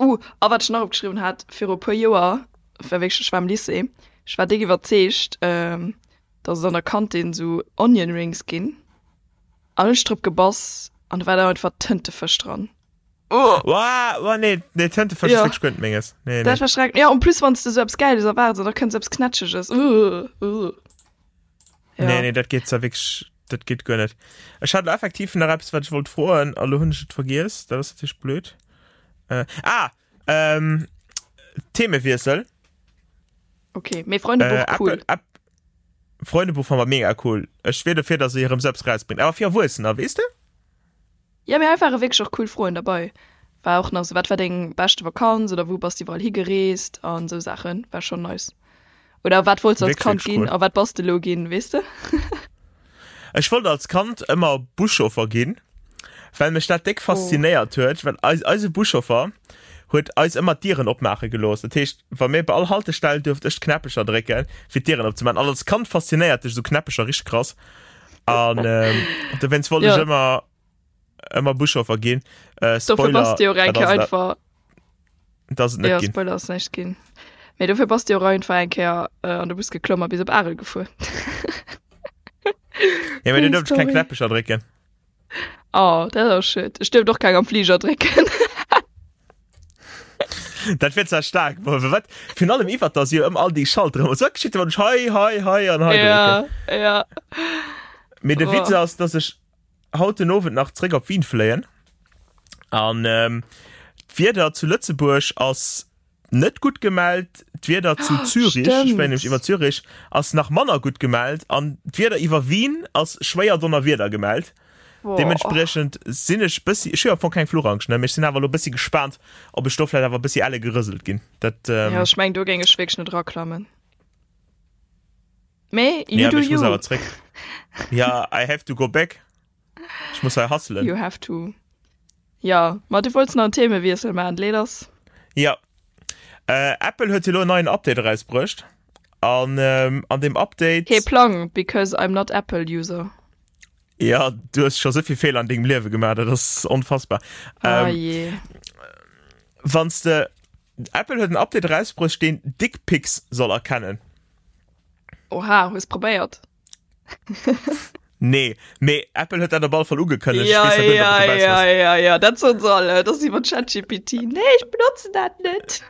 Speaker 2: Uh, a wat ech nach opgeschriwwen hat, viru e puer Joer, war wierklech, ech war am Lycée, ech war déck iwwerzeegt, dass et an der Kantin sou Onion Rings ginn an hunn ech drop gebass an do war da einfach Tëntefësch dran.
Speaker 3: Oh! Wow, oh, nee, nee, Tëntefësch
Speaker 2: Ja.
Speaker 3: ass wierklech guer net menges. Nee, nee.
Speaker 2: Dat war schrecklech. Ja, en plus wann s de sou eppes Gäiles erwaards an da kënnt sou eppes Knätscheges. Uh, uh.
Speaker 3: Ja. Nee, nee, dat geet zwar wierklech, dat geet guer net. Ech hat effektiv nach eppes, wat ech wollt froen, a lo hunn ech et vergiess. Dat ass natierlech blöd. Äh, ah, ähm, Themewiessel.
Speaker 2: Okay, mee Freundebuch,
Speaker 3: Äh,
Speaker 2: cool.
Speaker 3: Apple, App, Freundebuch fand mer mega cool. Ech wier dofir, dass se hirem selbst rausbringt. Awer fir Erwuessener, weess de?
Speaker 2: Ja, mee hei ware wierklech och cool Froen derbei. War och nach sou, wat war deng beschte Vakanz oder wou bass de iwwerall higereest an esou Saachen. War schonn nice. Oder wat wollts de als
Speaker 3: Wierklech,
Speaker 2: Kand
Speaker 3: wierklech
Speaker 2: ginn
Speaker 3: cool.
Speaker 2: a wat bass de elo ginn, weess de?
Speaker 3: Ech wollt als Kand ëmmer Buschauffer ginn, well mech dat déck
Speaker 2: Oh.
Speaker 3: faszinéiert huet, well eis, eise Buschauffer huet eis ëmmer d'Dieren opmaache gelooss. Dat heescht, wa mir bei all Haltestell duerft ech d'Knäppecher drécken, fir d'Dieren opzemaachen. An als Kand faszinéiert dech esou Knäppecher richteg krass. An ähm, dowéinst wollt
Speaker 2: Ja.
Speaker 3: ech ëmmer ëmmer Buschauffer ginn. Äh,
Speaker 2: Dofir
Speaker 3: Spoiler,
Speaker 2: bass de jo och eng
Speaker 3: dat
Speaker 2: Kéier
Speaker 3: ass dat,
Speaker 2: einfach
Speaker 3: dat ass et net
Speaker 2: Ja,
Speaker 3: ginn.
Speaker 2: Spoiler ass näischt ginn. Mee dofir bass de jo och einfach eng Kéier äh, an de Bus geklomm a bis op Arel gefuer.
Speaker 3: Ja, mee du
Speaker 2: Funny
Speaker 3: duerft ech keng
Speaker 2: Story.
Speaker 3: Knäppecher drécken.
Speaker 2: Oh, dat ass schued. Ech duerft och keng am Fliger drécken.
Speaker 3: Dat wier zwar staark, ma wat virun allem iwwert dass jo ëm all déi Schalteren ëmmer sou, wat geschitt wann ech hei, hei, hei an hei drécken?
Speaker 2: Ja, ja.
Speaker 3: Mee de Witz
Speaker 2: Oh.
Speaker 3: ass, dass ech haut den Owend nach zréck op Wien fléien an ähm, d'Wieder zu Lëtzebuerg ass net gutt gemellt, d'Wieder zu Zürich, ech fléien nämlech
Speaker 2: Stimmt.
Speaker 3: iwwer Zürich, ass nach manner gutt gemellt an d'Wieder iwwer Wien ass schwéier Donnerwieder gemellt.
Speaker 2: Boah.
Speaker 3: Deementspriechend sinn ech bëssi, ech hu jo am Fong keng Fluchangst, ne, mee ech sinn awer elo bëssi gespaant, ob ech do vläicht awer bëssi elle gerëselt ginn. Dat,
Speaker 2: Ja,
Speaker 3: ähm,
Speaker 2: ech meng, do géing ech wierklech net eraklammen. Mee you
Speaker 3: ja,
Speaker 2: do
Speaker 3: mee ech muss
Speaker 2: you.
Speaker 3: awer zréck. Ja, I have to go back. Ech muss hei hustlen.
Speaker 2: You have to. Ja, ma du wollts nach en Themewiessel maachen, leet ass.
Speaker 3: Ja. Äh, Apple huet jo elo en neien Update erausbruecht. An ähm, an deem Update.
Speaker 2: Kee Plang, because I'm not Apple user.
Speaker 3: Ja, du hues scho souvill Feeler an dengem Liewe gemaach, dat ass onfassbar.
Speaker 2: Ah
Speaker 3: Ähm,
Speaker 2: je.
Speaker 3: wanns de Apple huet en Update erausbruecht, deen Dickpics soll erkennen.
Speaker 2: Oha, hues probéiert?
Speaker 3: Nee, mee Apple huet dat op alle Fall ugekënnegt.
Speaker 2: Ja,
Speaker 3: Ech weess net,
Speaker 2: ja,
Speaker 3: ob du dobäi
Speaker 2: ja,
Speaker 3: bass.
Speaker 2: ja, ja, dat soen se alle. Dat ass iwwer ChatGPT. Nee, ech benotzen dat net.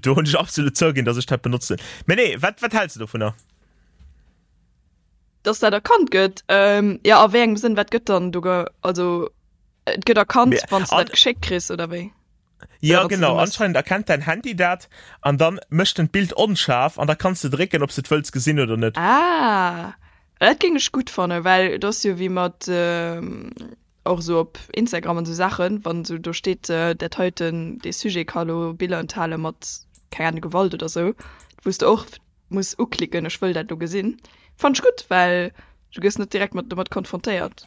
Speaker 3: Do hunn ech absolut zouginn, dass ech dat benotzen. Mee nee, wat, wat häls de dovunner?
Speaker 2: Dass dat erkannt gëtt? Ähm, ja, a wéi engem Sënn, wat gëtt dann do ge-, also et gëtt erkannt,
Speaker 3: Mee
Speaker 2: wann s du
Speaker 3: an
Speaker 2: dat geschéckt kriss, oder wéi?
Speaker 3: Ja,
Speaker 2: Oder wann s du
Speaker 3: genau,
Speaker 2: se mëss?
Speaker 3: anscheinend erkennt däin Handy dat an dann mécht en d'Bild onscharf an da kanns de drécken, ob s de et wëlls gesinn oder net.
Speaker 2: Ah, dat géing ech gutt fannen, well et ass jo wéi mat och esou op Instagram an esou Saachen, wann esou do steet, dat heiten, dee Sujet ka lo Biller enthale mat, keng Ahnung, Gewalt oder esou, wou s de och muss uklicken, ech wëll dat lo gesinn. Fannt ech gutt, well du gëss net direkt mat domat konfrontéiert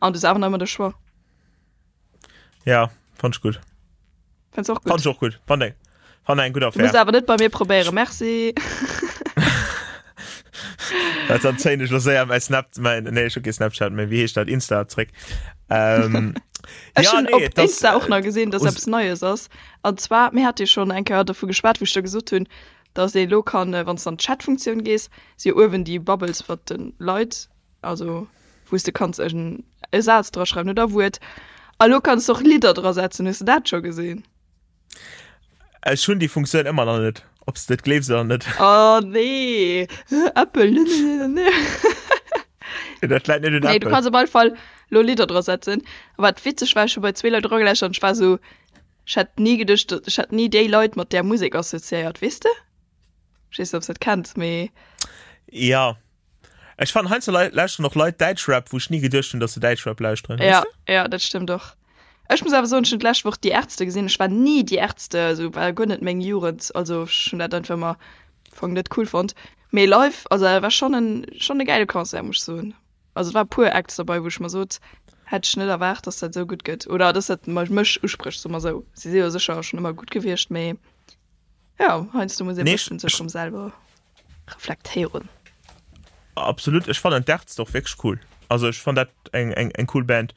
Speaker 2: an du hues awer nach ëmmer de Choix.
Speaker 3: Ja, fand ich gut.
Speaker 2: Fand's och gut.
Speaker 3: Fand ich och gut. Fand eng, fand eng gutt
Speaker 2: Du muss
Speaker 3: Affär.
Speaker 2: awer net bei mir probéieren, merci.
Speaker 3: Dat dann zéien ech lo séier mäi Snap, mäin, nee, ech hu kee Snapchat méi, wéi heescht dat, Insta zréck. Ähm,
Speaker 2: Ech
Speaker 3: ja,
Speaker 2: hunn
Speaker 3: nee,
Speaker 2: op
Speaker 3: et ass,
Speaker 2: Insta och
Speaker 3: äh,
Speaker 2: nach gesinn, dass
Speaker 3: us-
Speaker 2: eppes Neies ass. An zwar, mir hate jo schonn eng Kéier dovu geschwat, wou ech der gesot hunn, dass ee lo kann, äh, wann s de an d'Chat-Funktioun gees, si jo uewen déi Bubbles mat de Leit, also wou s de kanns en e Saz dra schreiwen oder e Wuert. A lo kanns de och Lidder dra setzen. Hues de dat scho gesinn?
Speaker 3: Ech hunn déi Funktioun ëmmer nach net, ob s de et gleefs oder net.
Speaker 2: Oh nee, Apple, ne, ne, ne, ne.
Speaker 3: Dat läit net un
Speaker 2: Nee, du
Speaker 3: Apple.
Speaker 2: kanns op alle Fall lo Lidder dra setzen. A wat witzeg war, ech hu bei zwee Leit erageläuschtert an ech war sou, ech hätt ni geduecht, ech hätt ni déi Leit mat där Musek assoziéiert, weess de? Ech weess net, ob s de dat kenns, mee.
Speaker 3: Ja. Ech fannen heiansdo lauschteren och Leit Däitschrap, wou ech ni geduecht hunn, dass se Däitschrap lauschteren,
Speaker 2: Ja,
Speaker 3: weess de?
Speaker 2: ja, dat stëmmt och. Ech muss awer soen, ech hunn d'lescht Woch Die Ärzte gesinn. Ech war ni Die Ärzte, also war guer net meng Jugend, also ech hunn dat einfach ëmmer am Fong net cool fonnt. Mee live, also dat war schonn en, schonn e gäile Concert, muss ech soen. Also et war e puer Acts derbei, wou ech mer sot, hätt ech net erwaart, dass dat esou gutt gëtt oder dass dat mech usprécht, soe mer esou. Si si jo sécher schonn ëmmer gutt gewiescht, mee jo, heiansdo muss ee
Speaker 3: Nee,
Speaker 2: bëssen sech
Speaker 3: ech,
Speaker 2: erëm selwer reflektéieren.
Speaker 3: Absolut, ech fannen d'Ärzte och wierklech cool. Also ech fann dat eng, eng, eng cool Band.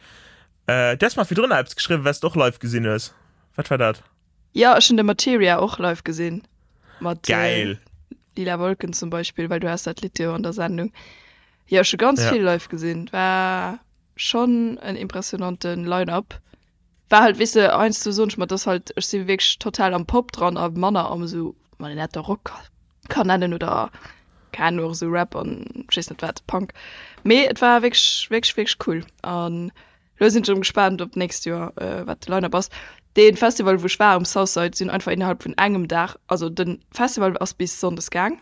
Speaker 3: Äh, du has mer virdrun nach eppes geschriwwen, wat s de och live gesinn hues. Wat war dat?
Speaker 2: Jo, ech hunn de Materia och live gesinn. Mat
Speaker 3: Geil!
Speaker 2: Lila Wolken zum Beispill, well du has dat Lidd jo an der Sendung. Jo, ech hu ganz
Speaker 3: Ja.
Speaker 2: vill live gesinn. War schonn en impressionante Line-Up. War halt, weess de, heiansdo soen ech mer, dass halt, ech si wierklech total am Pop dran a manner am esou, wann een dat da Rock kann nennen oder keng Ahnung, och esou Rap an ech weess net wat, Punk. Mee et war wierklech, wierklech, wierklech cool an elo sinn ech erëm gespaant op d'nächst Joer, wat de Line-Up ass. Dee Festival, wou ech war um Southside, sinn einfach innerhalb vun engem Dag, also de Festival ass bis Sonndes gaang,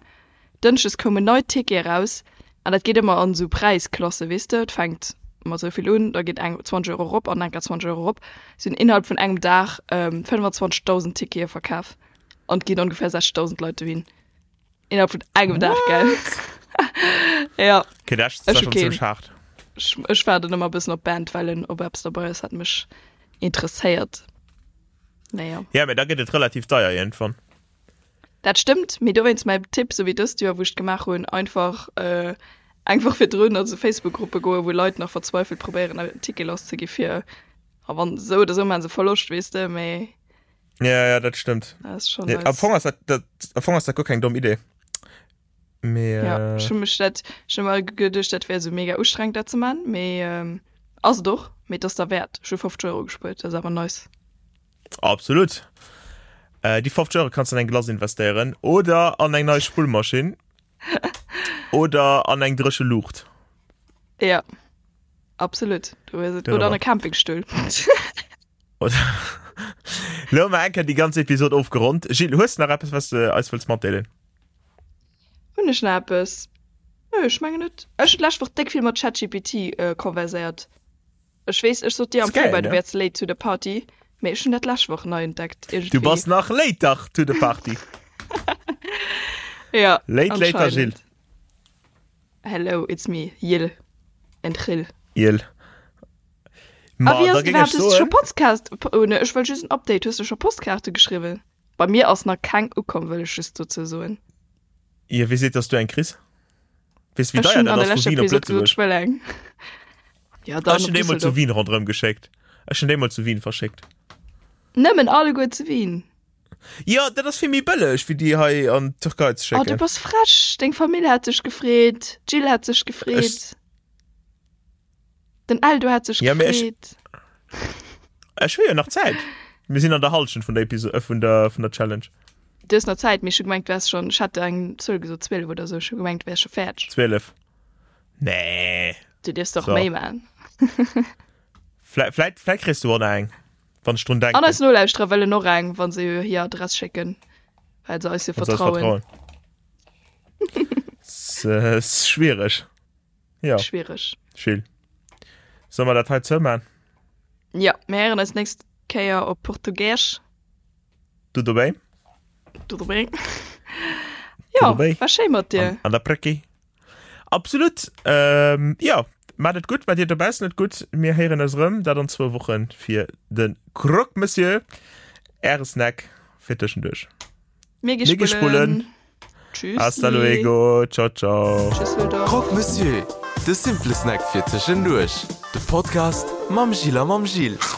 Speaker 2: Dënschdes koumen nei Tickete eraus an dat geet ëmmer an esou Präisklasse, weess de, et fänkt mat esou vill un, da geet eng 20 Euro erop an enker 20 Euro erop. Si hunn innerhalb vun engem Dag 25.000 Tickete verkaf an et ginn ongefähr 60.000 Leit dohin. Innerhalb vun engem Dag, gell? Ja.
Speaker 3: Okay, dat ass
Speaker 2: Ech hu
Speaker 3: schon
Speaker 2: keen.
Speaker 3: zimmlech haart.
Speaker 2: Ech, ech waarden ëmmer e bëssen op Bandwellen, ob eppes derbei ass, wat mech interesséiert. Naja.
Speaker 3: Ja, mee da gëtt et relativ deier iergendwann.
Speaker 2: Dat stëmmt, mee dowéinst mäi Tipp, sou wéi dëst Joer, wou ech et gemaach hunn, einfach eng Woch virdrun a sou Facebook-Gruppe goen, wou Leit nach verzweifelt probéieren en Ticket lasszegi fir, a wann esou oder esou maache se Verloscht, weess de, mee.
Speaker 3: Ja, ja, dat stëmmt.
Speaker 2: Dat ass schonn
Speaker 3: Nee,
Speaker 2: nice.
Speaker 3: am Fong ass dat, dat, am Fong ass dat guer keng domm Idee. Mee,
Speaker 2: Ja, ech hu mech dat, ech hu mer geduecht, dat wär sou mega ustrengend dat ze man, mee ass et och, mee et ass derwäert. Ech hu 50 Euro gespuert, dat ass awer nice.
Speaker 3: Absolut. Äh, déi 50 Euro kannst du an eng Glace investéieren oder an eng nei Spullmaschinn oder an eng dréche Luucht.
Speaker 2: Ja, absolut. Du hues et. Oder an e Campingstull.
Speaker 3: Oder Lo hu mer eng Kéier déi ganz Episod ofgeronnt. Gilles, hues du nach eppes, was du eis wëlls matdeelen?
Speaker 2: Hunn ech nach eppes? Nö, ech mengen net. Ech hunn d'lescht Woch déck vill mat ChatGPT konverséiert. Ech weess, ech sot dir am Februar, du wäers late to the party, mee ech hunn dat d'lescht Woch nei entdeckt
Speaker 3: iergendwéi. Du bass nach later to the party.
Speaker 2: Ja,
Speaker 3: Late, later Jill.
Speaker 2: anscheinend. Hello, it's me, Jill and Chill.
Speaker 3: Jill.
Speaker 2: A
Speaker 3: Ma
Speaker 2: wéi
Speaker 3: da
Speaker 2: ass et
Speaker 3: géing ech
Speaker 2: iwwerhaapt? Hues du scho
Speaker 3: soen.
Speaker 2: Podcast, oh ne, ech wëll just en Update, hues du scho Postkaarte geschriwwen? Bei mir ass nach keng ukomm, wëll ech just dozou soen.
Speaker 3: Jo, wie seet, dass du eng kriss? Weess wéi
Speaker 2: Ech
Speaker 3: deier
Speaker 2: hunn
Speaker 3: dat
Speaker 2: an der
Speaker 3: ass vu
Speaker 2: leschter
Speaker 3: Wien op
Speaker 2: Episode gesot,
Speaker 3: Lëtzebuerg?
Speaker 2: ech wëll eng. Ja, dann
Speaker 3: Ech
Speaker 2: op
Speaker 3: hunn déi mol zu
Speaker 2: Düsseldorf.
Speaker 3: Wien ronderëm geschéckt. Ech hunn déi mol zu Wien verschéckt.
Speaker 2: Nëmmen alleguer zu Wien?
Speaker 3: Jo, dat ass vill méi bëlleg wéi déi hei an d'Türkei ze
Speaker 2: Oh, du
Speaker 3: schécken.
Speaker 2: bass frech! Deng Famill hätt sech gefreet, d'Jill hätt sech
Speaker 3: Ech
Speaker 2: gefreet, den Eldo hätt sech
Speaker 3: Ja, mee ech
Speaker 2: gefreet.
Speaker 3: ech hu jo nach Zäit. Mir sinn an der Hallschent vun der Episo äh, vun der vun der Challenge.
Speaker 2: Du hues nach Zäit, mee ech hu gemengt, du häss schonn, ech hat der eng Zuel gesot, 12 oder sou, ech hu gemengt, du wäers scho fäerdeg.
Speaker 3: 12. Nee.
Speaker 2: Du dierfs doch
Speaker 3: So.
Speaker 2: méi man.
Speaker 3: Vläit, vläit, vläit kriss du och nach eng, wann ech drun
Speaker 2: An eis
Speaker 3: denken.
Speaker 2: Nolauschterer wëllen och eng, wa se hir Adress schécken, well se eis jo
Speaker 3: Wann se eis
Speaker 2: vertrauen.
Speaker 3: vertrauen. S, äh, schwiereg. Ja.
Speaker 2: Schwiereg.
Speaker 3: Chill. Solle mer dat hei zouman?
Speaker 2: Ja, mir héieren eis nächst Kéier op Portugiesch.
Speaker 3: Tudo bem?
Speaker 2: Tudo bem. Ja,
Speaker 3: Tudo bem.
Speaker 2: war schéi mat dir.
Speaker 3: An, an der Brecki. Absolut. Ähm, ja, mat et gutt, mat dir dobaussen et gutt. Mir héieren eis erëm, dat an zwou Wochen fir de Croque Monsieur, äre Snack fir tëschenduerch.
Speaker 2: Mir gi
Speaker 3: Mir gi
Speaker 2: spullen.
Speaker 3: spullen.
Speaker 2: Tschüssi.
Speaker 3: Hasta luego. Ciao, ciao.
Speaker 2: Tschüsseldorf.
Speaker 1: Croque Monsieur, de simple Snack fir tëschenduerch. De Podcast mam Gilles a mam Gilles.